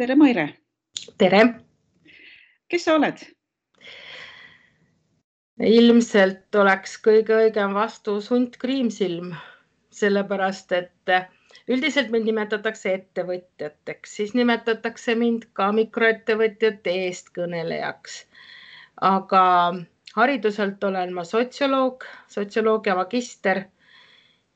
Tere, Maire! Tere! Kes sa oled? Ilmselt oleks kõige õigem vastus Hunt Kriimsilm, sellepärast, et üldiselt mind nimetatakse ettevõtjateks, siis nimetatakse mind ka mikroettevõtjate eestkõnelejaks. Aga hariduselt olen ma sotsioloogia magister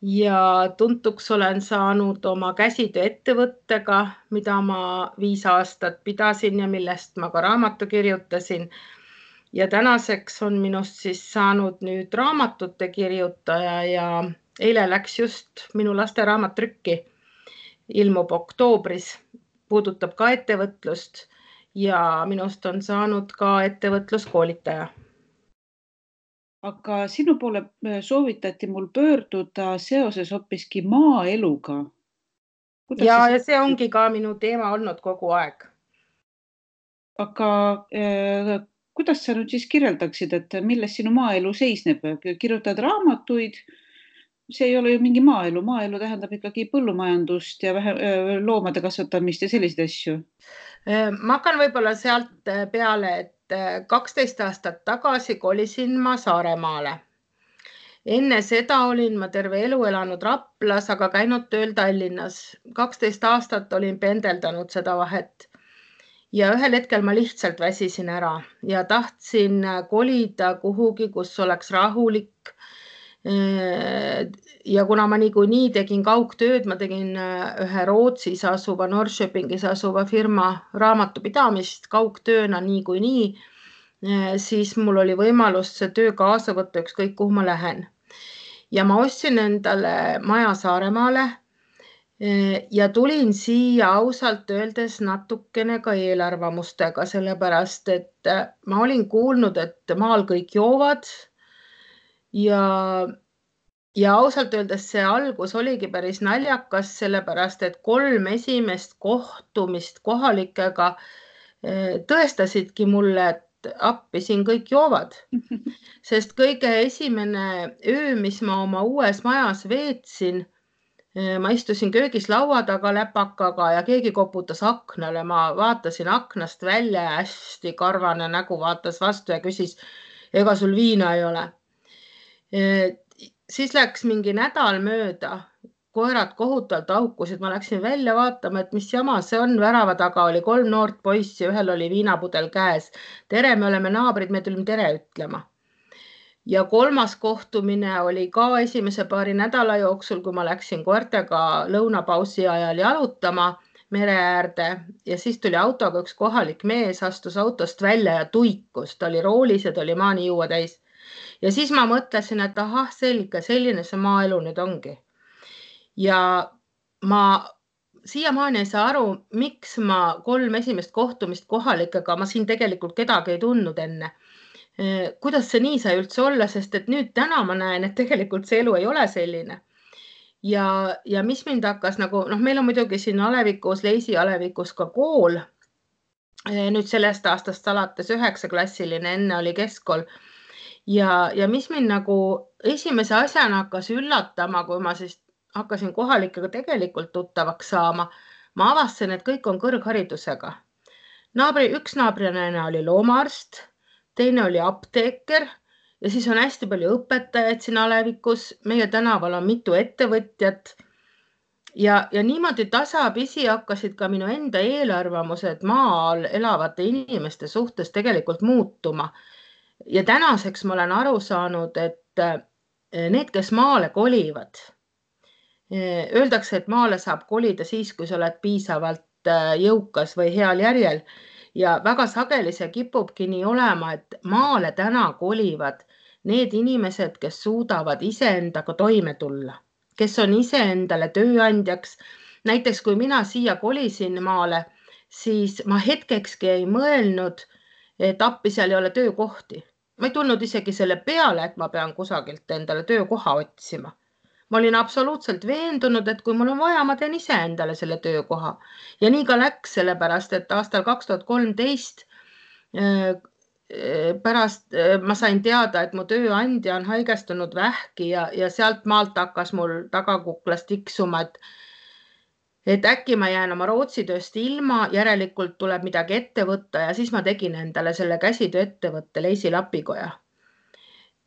ja tuntuks olen saanud oma käsitööettevõttega, mida ma 5 aastat pidasin ja millest ma ka raamatu kirjutasin. Ja tänaseks on minust siis saanud nüüd raamatute kirjutaja ja eile läks just minu laste raamat trükki, ilmub oktoobris, puudutab ka ettevõtlust ja minust on saanud ka ettevõtluskoolitaja. Aga sinu poole soovitati mul pöörduda seoses hoopiski maaeluga. Ja see ongi ka minu teema olnud kogu aeg. Aga kuidas sa nüüd siis kirjeldaksid, et milles sinu maaelu seisneb? Kirjutad raamatuid, see ei ole ju mingi maaelu. Maaelu tähendab ikkagi põllumajandust ja loomade kasvatamist ja selliseid asju. Ma hakkan võib-olla sealt peale, et 12 aastat tagasi kolisin ma Saaremaale. Enne seda olin ma terve elu elanud Raplas, aga käinud tööl Tallinnas. 12 aastat olin pendeldanud seda vahet. Ja ühel hetkel ma lihtsalt väsisin ära ja tahtsin kolida kuhugi, kus oleks rahulik. Ja kuna ma niikuinii tegin kaugtööd, ma tegin ühe Rootsis asuva, Norrköpingis asuva firma raamatupidamist kaugtööna niikuinii, siis mul oli võimalus see töö kaasa võtta ükskõik kuhu ma lähen. Ja ma ostsin endale maja Saaremaale ja tulin siia ausalt öeldes natukene ka eelarvamustega, sellepärast, et ma olin kuulnud, et maal kõik joovad ja ausalt öeldes see algus oligi päris naljakas, sellepärast, et 3 esimest kohtumist kohalikega tõestasidki mulle, et appi siin kõik joovad. Sest kõige esimene öö, mis ma oma uues majas veetsin, ma istusin köögis laua taga läpakaga ja keegi koputas aknale. Ma vaatasin aknast välja ja hästi karvane nägu vaatas vastu ja küsis, ega sul viina ei ole. Siis läks mingi nädal mööda, koerad kohutavalt aukusid, ma läksin välja vaatama, et mis jama see on. Värava taga oli 3 noort poissi, ühel oli viinapudel käes. Tere, me oleme naabrid, me tulime tere ütlema. Ja 3. kohtumine oli ka esimese paari nädala jooksul, kui ma läksin koertega lõunapausi ajal jalutama mere äärde ja siis tuli autoga üks kohalik mees, astus autost välja ja tuikus. Ta oli roolis ja ta oli maani juua täis. Ja siis ma mõtlesin, et ahah, selge, selline see maaelu nüüd ongi. Ja ma siiamaani ei saa aru, miks ma 3 esimest kohtumist kohalikega, ma siin tegelikult kedagi ei tundnud enne. Kuidas see nii sai üldse olla, sest et nüüd täna ma näen, et tegelikult see elu ei ole selline. Ja mis mind hakkas nagu, meil on muidugi siin Alevikus, Leisi Alevikus ka kool. Nüüd sellest aastast alates 9-klassiline, enne oli keskkool. Ja mis mind nagu esimese asjana hakkas üllatama, kui ma siis hakkasin kohalikega tegelikult tuttavaks saama, ma avastasin, et kõik on kõrgharidusega. Üks naabrinaine oli loomaarst, teine oli apteeker ja siis on hästi palju õpetajaid siin Alevikus. Meie tänaval on mitu ettevõtjat ja niimoodi tasapisi hakkasid ka minu enda eelarvamused maal elavate inimeste suhtes tegelikult muutuma. Ja tänaseks ma olen aru saanud, et need, kes maale kolivad, öeldakse, et maale saab kolida siis, kui sa oled piisavalt jõukas või heal järjel. Ja väga sageli see kipubki nii olema, et maale täna kolivad need inimesed, kes suudavad iseendaga toime tulla, kes on iseendale tööandjaks. Näiteks kui mina siia kolisin maale, siis ma hetkekski ei mõelnud, et appi seal ei ole töökohti. Ma ei tulnud isegi selle peale, et ma pean kusagilt endale töökoha otsima. Ma olin absoluutselt veendunud, et kui mul on vaja, ma teen ise endale selle töökoha. Ja nii ka läks, sellepärast, et aastal 2013 pärast ma sain teada, et mu tööandja on haigestunud vähki ja sealt maalt hakkas mul tagakuklas tiksuma, et et äkki ma jään oma Rootsi tööst ilma, järelikult tuleb midagi ette võtta ja siis ma tegin endale selle käsitööettevõtte Leisi lapikoja.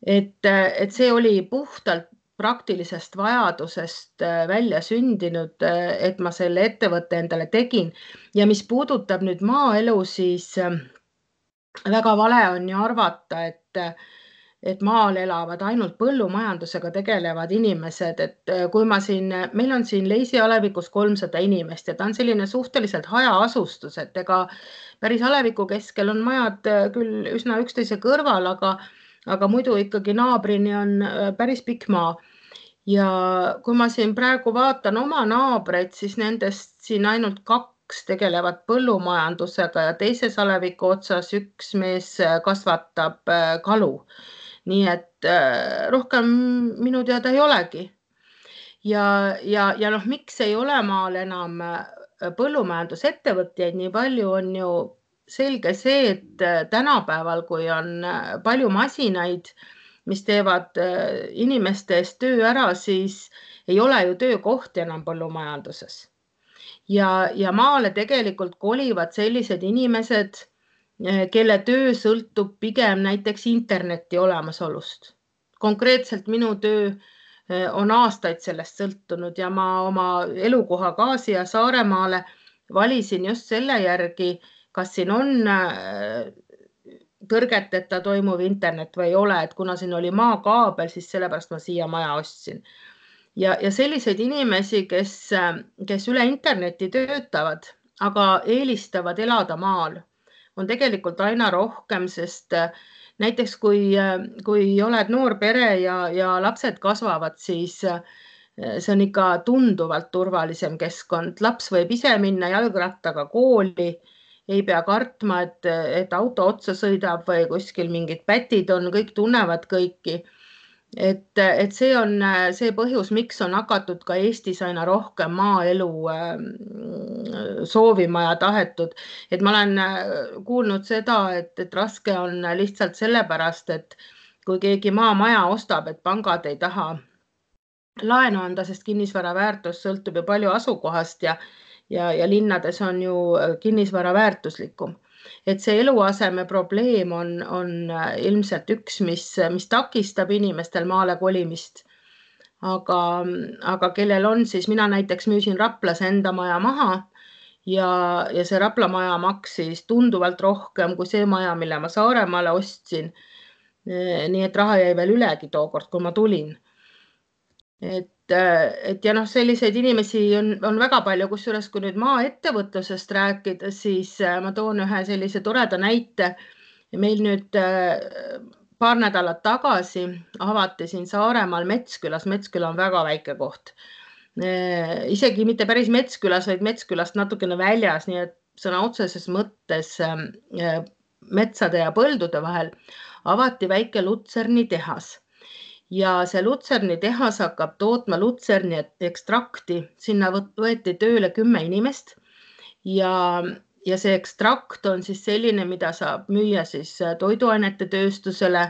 Et see oli puhtalt praktilisest vajadusest välja sündinud, et ma selle ettevõtte endale tegin. Ja mis puudutab nüüd maaelu, siis väga vale on ju arvata, et maal elavad ainult põllumajandusega tegelevad inimesed, et kui meil on siin Leisi alevikus 300 inimest ja ta on selline suhteliselt hajaasustus, et ega päris aleviku keskel on majad küll üsna üksteise kõrval, aga muidu ikkagi naabrini on päris pikk maa. Ja kui ma siin praegu vaatan oma naabreid, siis nendest siin ainult 2 tegelevad põllumajandusega ja teises aleviku otsas üks mees kasvatab kalu. Nii et rohkem minu teada ei olegi. Ja miks ei ole maal enam põllumajandusettevõtjaid nii palju, on ju selge see, et tänapäeval, kui on palju masinaid, mis teevad inimeste eest töö ära, siis ei ole ju töökohti enam põllumajanduses. Ja maale tegelikult kolivad sellised inimesed, kelle töö sõltub pigem näiteks interneti olemasolust. Konkreetselt minu töö on aastaid sellest sõltunud ja ma oma elukoha ka siia Saaremaale valisin just selle järgi, kas siin on tõrgeteta toimuv internet või ei ole, et kuna siin oli maakaabel, siis sellepärast ma siia maja ostsin. Ja selliseid inimesi, kes üle interneti töötavad, aga eelistavad elada maal, on tegelikult aina rohkem, sest näiteks kui oled noor pere ja lapsed kasvavad, siis see on ikka tunduvalt turvalisem keskkond. Laps võib ise minna jalgrattaga kooli, ei pea kartma, et auto otsa sõidab või kuskil mingid pätid on, kõik tunnevad kõiki. Et see on see põhjus, miks on hakatud ka Eestis aina rohkem maaelu soovima ja tahetud. Et ma olen kuulnud seda, et raske on lihtsalt sellepärast, et kui keegi maamaja ostab, et pangad ei taha laenu anda, sest kinnisvara väärtus sõltub ju palju asukohast ja linnades on ju kinnisvara väärtuslikum. Et see eluaseme probleem on ilmselt üks, mis takistab inimestel maale kolimist. Aga kellel on, siis mina näiteks müüsin Raplas enda maja maha ja see Rapla maja maksis tunduvalt rohkem kui see maja, mille ma Saaremaale ostsin. Nii et raha jäi veel ülegi tookord, kui ma tulin. Et ja selliseid inimesi on väga palju, kusjuures kui nüüd maaettevõtlusest rääkida, siis ma toon ühe sellise toreda näite. Meil nüüd paar nädalat tagasi avati siin Saaremaal Metskülas. Metsküla on väga väike koht. Isegi mitte päris Metskülas, vaid Metskülast natukene väljas, nii et sõna otseses mõttes metsade ja põldude vahel avati väike Lutserni tehas. Ja see Lutserni tehas hakkab tootma Lutserni ekstrakti. Sinna võeti tööle 10 inimest ja see ekstrakt on siis selline, mida saab müüa siis toiduainete tööstusele.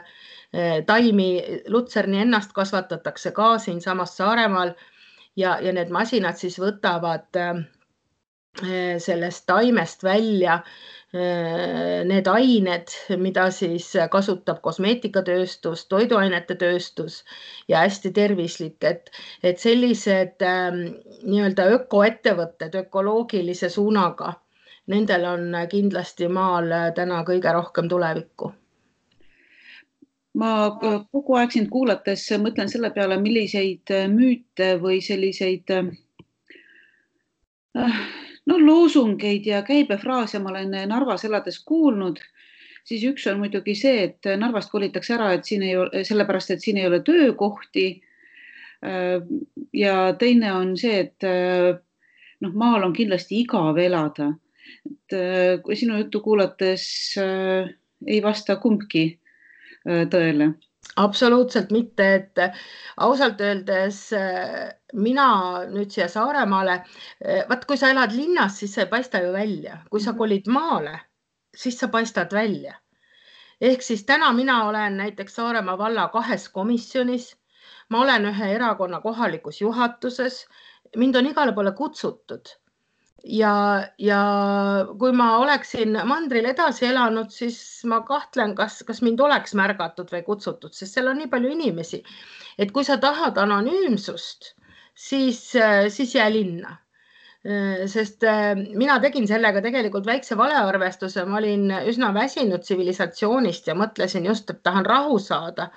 Taimi Lutserni ennast kasvatatakse ka siin samas Saaremaal ja need masinad siis võtavad sellest taimest välja need ained, mida siis kasutab kosmeetikatööstus, toiduainete tööstus ja hästi tervislik, et sellised nii-öelda ökoettevõtted ökoloogilise suunaga, nendel on kindlasti maal täna kõige rohkem tulevikku. Ma kogu aeg sind kuulates mõtlen selle peale, milliseid müüte või selliseid loosungeid ja käibefraase ma olen Narvas elades kuulnud, siis üks on muidugi see, et Narvast kolitakse ära, et siin ei ole, sellepärast, et siin ei ole töökohti. Ja teine on see, et maal on kindlasti igav elada. Kui sinu juttu kuulates ei vasta kumbki tõele. Absoluutselt mitte, et ausalt öeldes mina nüüd siia Saaremaale, kui sa elad linnas, siis sa ei paista ju välja. Kui sa kolid maale, siis sa paistad välja. Ehk siis täna mina olen näiteks Saaremaa valla 2 komisjonis, ma olen ühe erakonna kohalikus juhatuses, mind on igale poole kutsutud, ja kui ma oleksin mandril edasi elanud, siis ma kahtlen, kas mind oleks märgatud või kutsutud, sest seal on nii palju inimesi, et kui sa tahad anonüümsust, siis jää linna. Sest mina tegin sellega tegelikult väikse valearvestuse, ma olin üsna väsinud tsivilisatsioonist ja mõtlesin just, et tahan rahu saada.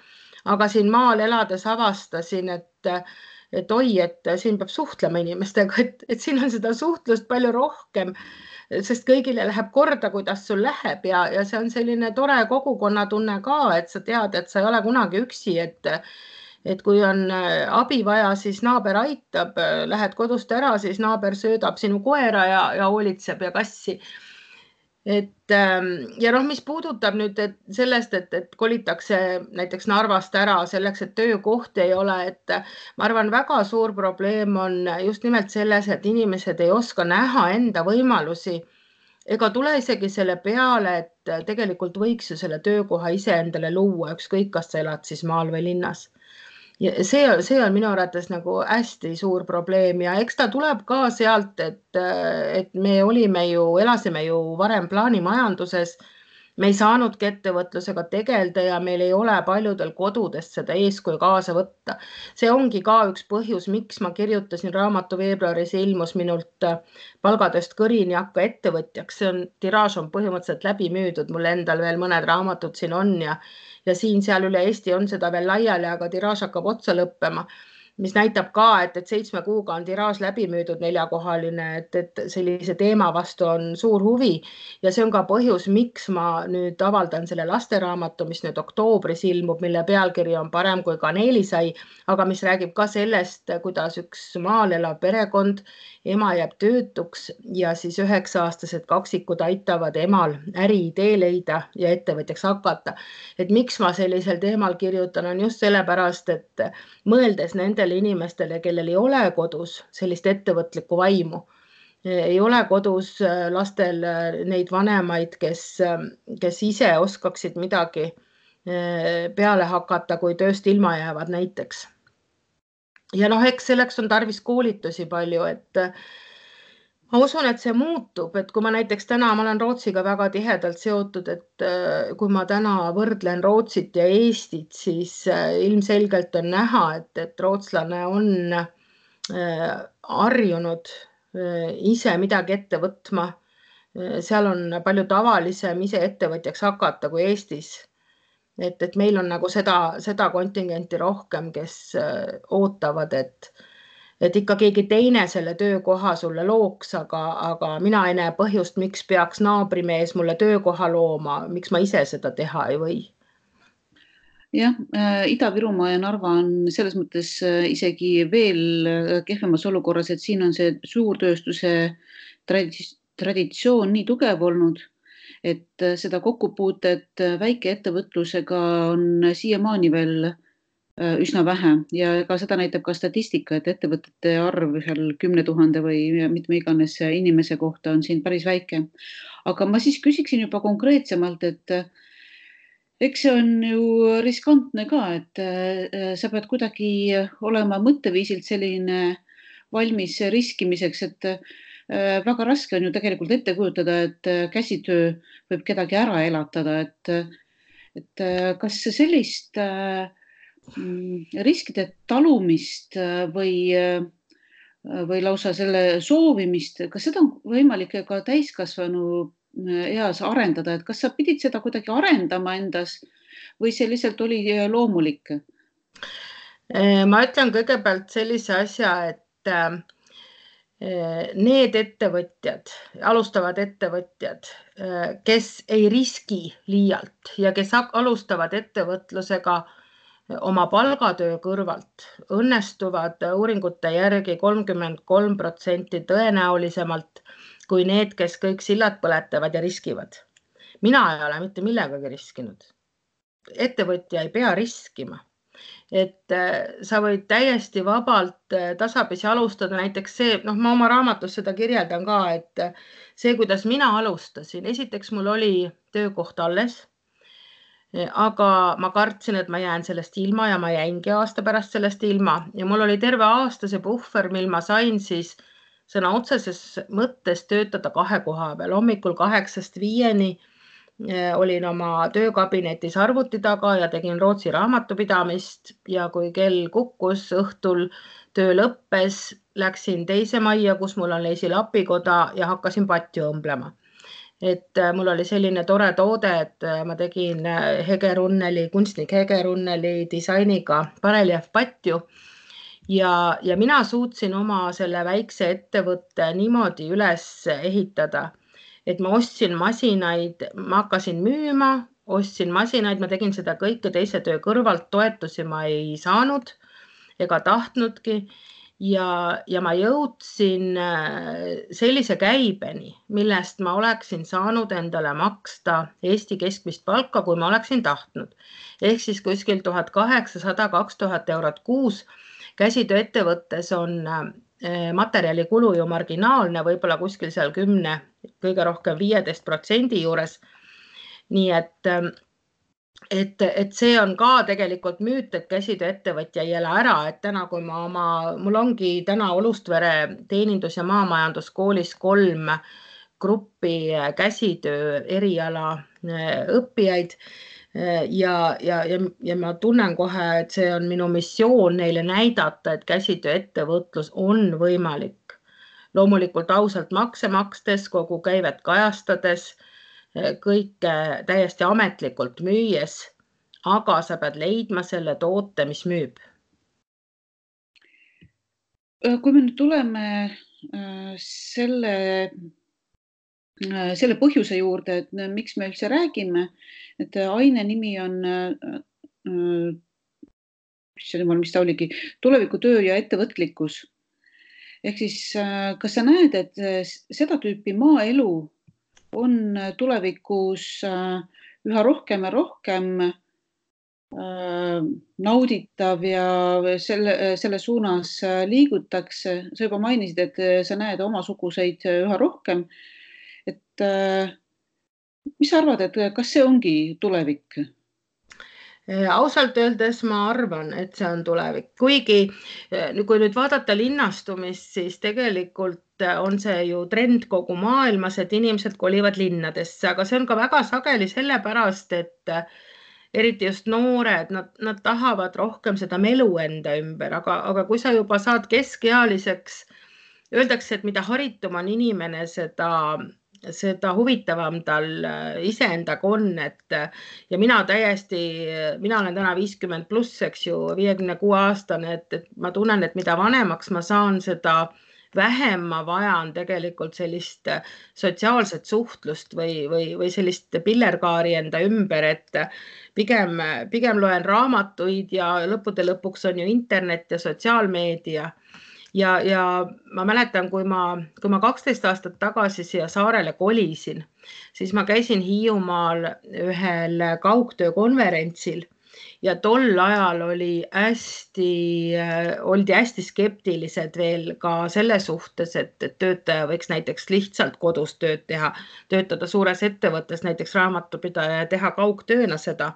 Aga siin maal elades avastasin, et oi, et siin peab suhtlema inimestega, et siin on seda suhtlust palju rohkem, sest kõigile läheb korda, kuidas sul läheb ja see on selline tore kogukonnatunne ka, et sa tead, et sa ei ole kunagi üksi, et kui on abi vaja, siis naaber aitab, lähed kodust ära, siis naaber söödab sinu koera ja hoolitseb ja kassi. Ja mis puudutab nüüd sellest, et kolitakse näiteks Narvast ära selleks, et töökohti ei ole, et ma arvan, väga suur probleem on just nimelt selles, et inimesed ei oska näha enda võimalusi ega tule isegi selle peale, et tegelikult võiks ju selle töökoha ise endale luua, ükskõik, kas sa elad siis maal või linnas. Ja see on minu arvates nagu hästi suur probleem ja eks ta tuleb ka sealt, et me elasime ju varem plaanimajanduses, me ei saanudki ettevõtlusega tegeleda ja meil ei ole paljudel kodudest seda eeskuju kaasa võtta. See ongi ka üks põhjus, miks ma kirjutasin raamatu veebruaris, ilmus minult palgatööst kõrini hakka ettevõtjaks. Tiraaž on põhimõtteliselt läbi müüdud, mul endal veel mõned raamatud siin on ja siin-seal üle Eesti on seda veel laiali, aga tiraaž hakkab otsa lõppema, mis näitab ka, et 7 kuuga on tiraaž läbi müüdud 4-kohaline, et sellise teema vastu on suur huvi ja see on ka põhjus, miks ma nüüd avaldan selle lasteraamatu, mis nüüd oktoobris ilmub, mille pealkiri on Parem kui kaneelisai, aga mis räägib ka sellest, kuidas üks maal elav perekond, ema jääb töötuks ja siis 9-aastased kaksikud aitavad emal äriidee leida ja ettevõtjaks hakata. Et miks ma sellisel teemal kirjutan, on just sellepärast, et mõeldes nendele inimestele, kellel ei ole kodus sellist ettevõtlikku vaimu, ei ole kodus lastel neid vanemaid, kes ise oskaksid midagi peale hakata, kui tööst ilma jäävad näiteks. Ja eks selleks on tarvis koolitusi palju, et ma usun, et see muutub, et kui ma näiteks täna, ma olen Rootsiga väga tihedalt seotud, et kui ma täna võrdlen Rootsit ja Eestit, siis ilmselgelt on näha, et rootslane on harjunud ise midagi ette võtma. Seal on palju tavalisem ise ettevõtjaks hakata kui Eestis. Et meil on nagu seda kontingenti rohkem, kes ootavad, et ikka keegi teine selle töökoha sulle looks, aga mina ei näe põhjust, miks peaks naabrimees mulle töökoha looma, miks ma ise seda teha ei või. Jah, Ida-Virumaa ja Narva on selles mõttes isegi veel kehvemas olukorras, et siin on see suurtööstuse traditsioon nii tugev olnud, et seda kokkupuutet väikeettevõtlusega on siiamaani veel üsna vähe ja ka seda näitab ka statistika, et ettevõtete arv seal 10 000 või mitme iganes inimese kohta on siin päris väike. Aga ma siis küsiksin juba konkreetsemalt, et eks see on ju riskantne ka, et sa pead kuidagi olema mõtteviisilt selline valmis riskimiseks, et väga raske on ju tegelikult ette kujutada, et käsitöö võib kedagi ära elatada, et kas sellist riskide talumist või lausa selle soovimist, kas seda on võimalik ka täiskasvanu eas arendada, et kas sa pidid seda kuidagi arendama endas või see lihtsalt oli loomulik? Ma ütlen kõigepealt sellise asja, et need ettevõtjad, alustavad ettevõtjad, kes ei riski liialt ja kes alustavad ettevõtlusega oma palgatöö kõrvalt, õnnestuvad uuringute järgi 33% tõenäolisemalt kui need, kes kõik sillad põletavad ja riskivad. Mina ei ole mitte millegagi riskinud. Ettevõtja ei pea riskima. Et sa võid täiesti vabalt tasapisi alustada, näiteks see, ma oma raamatus seda kirjeldan ka, et see, kuidas mina alustasin, esiteks mul oli töökoht alles, aga ma kartsin, et ma jään sellest ilma ja ma jäingi aasta pärast sellest ilma ja mul oli terve aasta see puhver, mil ma sain siis sõna otseses mõttes töötada 2 koha peal. Hommikul 8-5 olin oma töökabinetis arvuti taga ja tegin Rootsi raamatupidamist ja kui kell kukkus õhtul, töö lõppes, läksin teise majja, kus mul on leisilapikoda ja hakkasin patju õmblema. Et mul oli selline tore toode, et ma tegin Hegerunneli, kunstnik Hegerunneli disainiga pareljäävpatju ja mina suutsin oma selle väikse ettevõtte niimoodi üles ehitada, et ma ostsin masinaid, ma hakkasin müüma, ostsin masinaid, ma tegin seda kõike teise töö kõrvalt, toetusi ma ei saanud ega tahtnudki ja ma jõudsin sellise käibeni, millest ma oleksin saanud endale maksta Eesti keskmist palka, kui ma oleksin tahtnud. Ehk siis kuskil 1800-2000 eurot kuus. Käsitööettevõttes on materjalikulu ju marginaalne, võib-olla kuskil seal 10, kõige rohkem 15% juures. Nii et see on ka tegelikult müüt, et käsitööettevõtja ei ela ära, et täna, kui mul ongi täna Olustvere teenindus- ja maamajanduskoolis 3 gruppi käsitöö eriala õppijaid ja ma tunnen kohe, et see on minu missioon neile näidata, et käsitööettevõtlus on võimalik. Loomulikult ausalt makse makstes, kogu käivet kajastades, kõike täiesti ametlikult müües, aga sa pead leidma selle toote, mis müüb. Kui me nüüd tuleme selle põhjuse juurde, et miks me üldse räägime, et aine nimi on, mis ta oligi, tulevikutöö ja ettevõtlikkus. Ehk siis, kas sa näed, et seda tüüpi maaelu on tulevikus üha rohkem ja rohkem nauditav ja selle suunas liigutakse? Sa juba mainisid, et sa näed omasuguseid üha rohkem. Et mis sa arvad, et kas see ongi tulevik? Ausalt öeldes ma arvan, et see on tulevik. Kuigi kui nüüd vaadata linnastumist, siis tegelikult on see ju trend kogu maailmas, et inimesed kolivad linnadesse, aga see on ka väga sageli sellepärast, et eriti just noored, nad tahavad rohkem seda melu enda ümber, aga kui sa juba saad keskealiseks, öeldakse, et mida haritum on inimene, seda huvitavam tal iseendaga on, ja mina olen täna 50+, eks ju, 56-aastane, et ma tunnen, et mida vanemaks ma saan, seda vähem ma vajan tegelikult sellist sotsiaalset suhtlust või sellist pillerkaari enda ümber, et pigem loen raamatuid ja lõppude lõpuks on ju internet ja sotsiaalmeedia. Ja ma mäletan, kui ma 12 aastat tagasi siia saarele kolisin, siis ma käisin Hiiumaal ühel kaugtöökonverentsil ja tol ajal oldi hästi skeptilised veel ka selle suhtes, et töötaja võiks näiteks lihtsalt kodus tööd teha, töötada suures ettevõttes, näiteks raamatupidaja ja teha kaugtööna seda.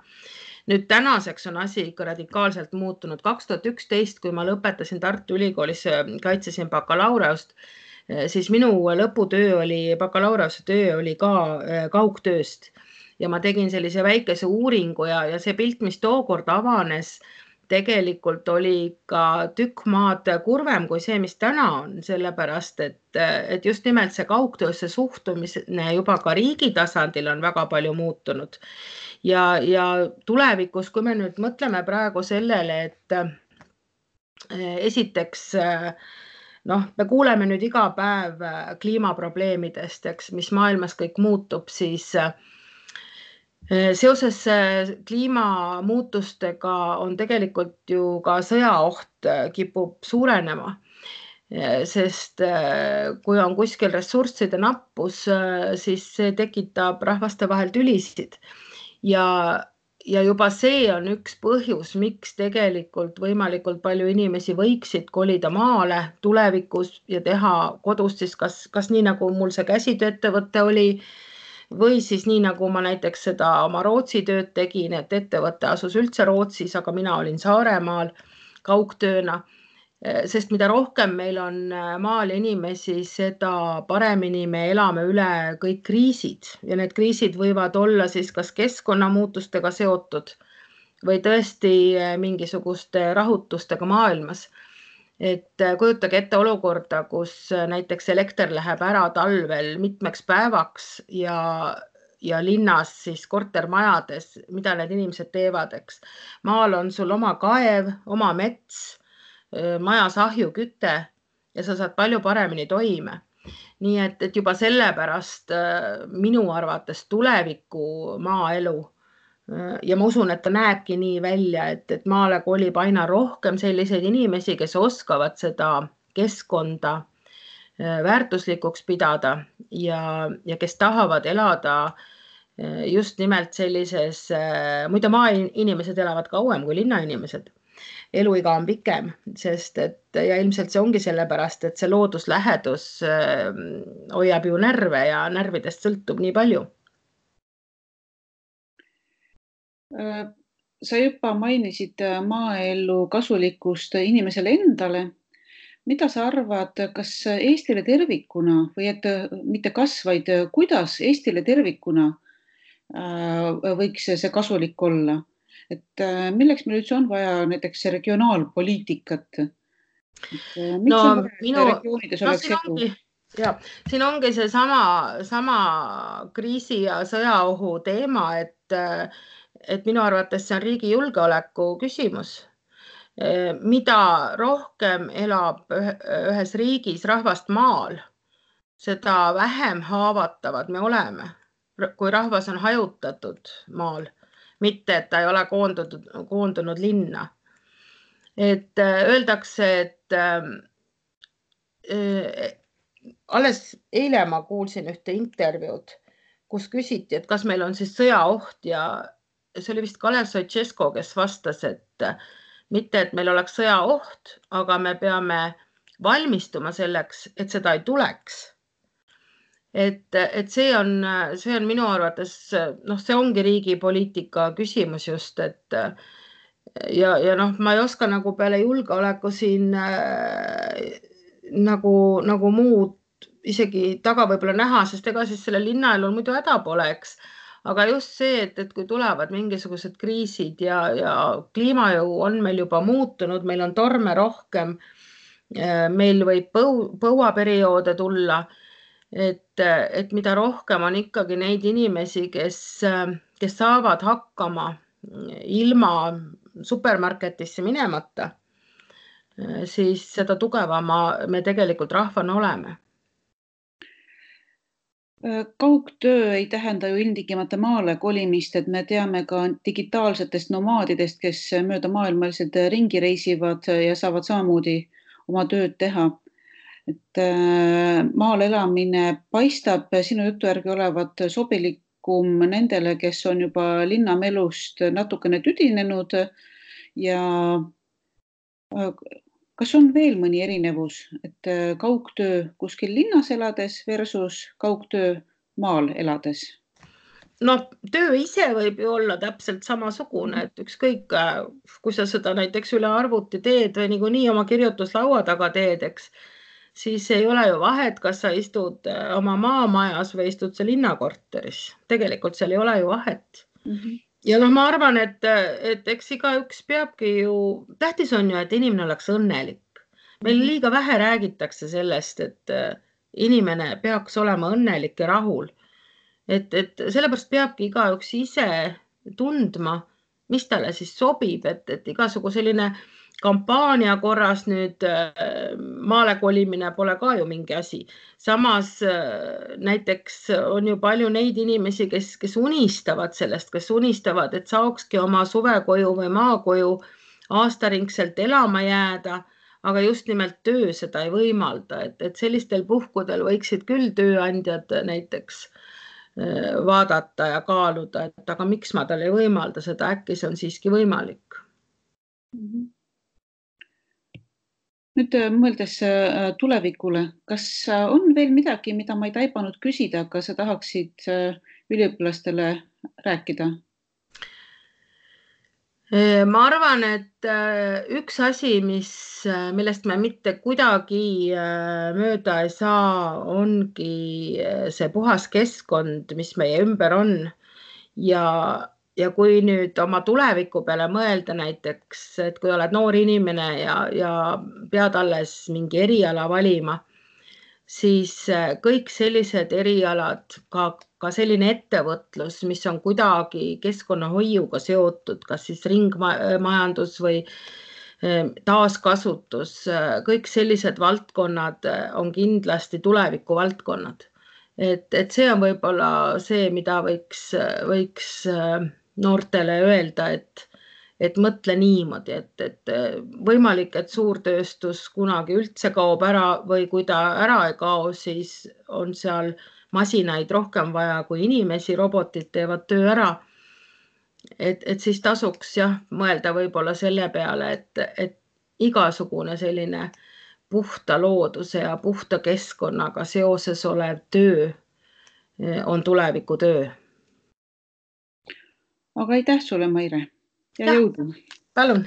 Nüüd tänaseks on asi ikka radikaalselt muutunud. 2011, kui ma lõpetasin Tartu Ülikoolis, kaitsesin bakalaureust, siis minu lõputöö bakalaureuse töö oli ka kaugtööst. Ja ma tegin sellise väikese uuringu ja see pilt, mis tookord avanes, tegelikult oli ka tükk maad kurvem kui see, mis täna on, sellepärast, et just nimelt see kaugtöösse suhtumine juba ka riigi tasandil on väga palju muutunud. Ja tulevikus, kui me nüüd mõtleme praegu sellele, et esiteks, me kuuleme nüüd iga päev kliimaprobleemidest, eks, mis maailmas kõik muutub, siis seoses kliimamuutustega on tegelikult ju ka sõjaoht kipub suurenema, sest kui on kuskil ressursside nappus, siis see tekitab rahvaste vahel tülisid. Ja juba see on üks põhjus, miks tegelikult võimalikult palju inimesi võiksid kolida maale tulevikus ja teha kodust siis kas nii, nagu mul see käsitööettevõte oli, või siis nii, nagu ma näiteks seda oma Rootsi tööd tegin, et ettevõte asus üldse Rootsis, aga mina olin Saaremaal kaugtööna. sest mida rohkem meil on maal inimesi, seda paremini me elame üle kõik kriisid ja need kriisid võivad olla siis kas keskkonnamuutustega seotud või tõesti mingisuguste rahutustega maailmas. Et kujutage ette olukorda, kus näiteks elekter läheb ära talvel mitmeks päevaks ja linnas siis kortermajades, mida need inimesed teevad, eks. Maal on sul oma kaev, oma mets, majas ahjuküte ja sa saad palju paremini toime. Nii et juba sellepärast minu arvates tuleviku maaelu ja ma usun, et ta näebki nii välja, et maale kolib aina rohkem selliseid inimesi, kes oskavad seda keskkonda väärtuslikuks pidada ja kes tahavad elada just nimelt sellises, muide maainimesed elavad kauem kui linnainimesed. Eluiga on pikem, sest ja ilmselt see ongi sellepärast, et see looduslähedus hoiab ju närve ja närvidest sõltub nii palju. Sa juba mainisid maaelu kasulikkust inimesele endale. Mida sa arvad, kas Eestile tervikuna või et mitte kas, vaid kuidas Eestile tervikuna võiks see kasulik olla? Et milleks meil üldse on vaja näiteks regionaalpoliitikat? Miks on vaja regioonides oleks edu? Ja, siin ongi see sama kriisi ja sõjaohu teema, et minu arvates see on riigi julgeoleku küsimus. Mida rohkem elab ühes riigis rahvast maal, seda vähem haavatavad me oleme, kui rahvas on hajutatud maal, mitte et ta ei ole koondunud linna. Et öeldakse, et alles eile ma kuulsin ühte intervjuud, kus küsiti, et kas meil on siis sõjaoht ja see oli vist Kalev Stoicescu, kes vastas, et mitte, et meil oleks sõjaoht, aga me peame valmistuma selleks, et seda ei tuleks. Et see on minu arvates, see ongi riigi poliitika küsimus just, et ja ma ei oska nagu peale julgeoleku siin nagu muud isegi taga võib-olla näha, sest ega siis selle linnaelul muidu häda pole, eks. Aga just see, et kui tulevad mingisugused kriisid ja kliimajõu on meil juba muutunud, meil on torme rohkem, meil võib põuaperioode tulla, et mida rohkem on ikkagi neid inimesi, kes saavad hakkama ilma supermarketisse minemata, siis seda tugevama me tegelikult rahvana oleme. Kaugtöö ei tähenda ju ilmtingimata maale kolimist, et me teame ka digitaalsetest nomaadidest, kes mööda maailmaliselt ringi reisivad ja saavad samamoodi oma tööd teha. Et maal elamine paistab sinu jutu järgi olevat sobilikum nendele, kes on juba linnamelust natukene tüdinenud ja kas on veel mõni erinevus, et kaugtöö kuskil linnas elades versus kaugtöö maal elades? Töö ise võib ju olla täpselt samasugune, et ükskõik, kui sa seda näiteks üle arvuti teed või niikuinii oma kirjutuslaua taga teed, eks, siis ei ole ju vahet, kas sa istud oma maamajas või istud sa linnakorteris. Tegelikult seal ei ole ju vahet. Ja ma arvan, et eks igaüks peabki ju, tähtis on ju, et inimene oleks õnnelik. Meil liiga vähe räägitakse sellest, et inimene peaks olema õnnelik ja rahul. Et sellepärast peabki igaüks ise tundma, mis talle siis sobib, et igasugu selline kampaania korras nüüd maale kolimine pole ka ju mingi asi. Samas näiteks on ju palju neid inimesi, kes unistavad sellest, kes unistavad, et saakski oma suvekoju või maakoju aastaringselt elama jääda, aga just nimelt töö seda ei võimalda, et sellistel puhkudel võiksid küll tööandjad näiteks vaadata ja kaaluda, et aga miks ma talle ei võimalda seda, äkki see on siiski võimalik. Nüüd mõeldes tulevikule, kas on veel midagi, mida ma ei taibanud küsida, aga sa tahaksid üliõpilastele rääkida? Ma arvan, et üks asi, millest me mitte kuidagi mööda ei saa, ongi see puhas keskkond, mis meie ümber on. Ja kui nüüd oma tuleviku peale mõelda näiteks, et kui oled noor inimene ja pead alles mingi eriala valima, siis kõik sellised erialad, ka selline ettevõtlus, mis on kuidagi keskkonnahoiuga seotud, kas siis ringmajandus või taaskasutus, kõik sellised valdkonnad on kindlasti tuleviku valdkonnad. Et see on võib-olla see, mida võiks noortele öelda, et mõtle niimoodi, et võimalik, et suurtööstus kunagi üldse kaob ära või kui ta ära ei kao, siis on seal masinaid rohkem vaja kui inimesi, robotid teevad töö ära. Et siis tasuks jah mõelda võib-olla selle peale, et igasugune selline puhta looduse ja puhta keskkonnaga seoses olev töö on tulevikutöö. Aga aitäh sulle, Maire, ja Jah, jõudu! palun!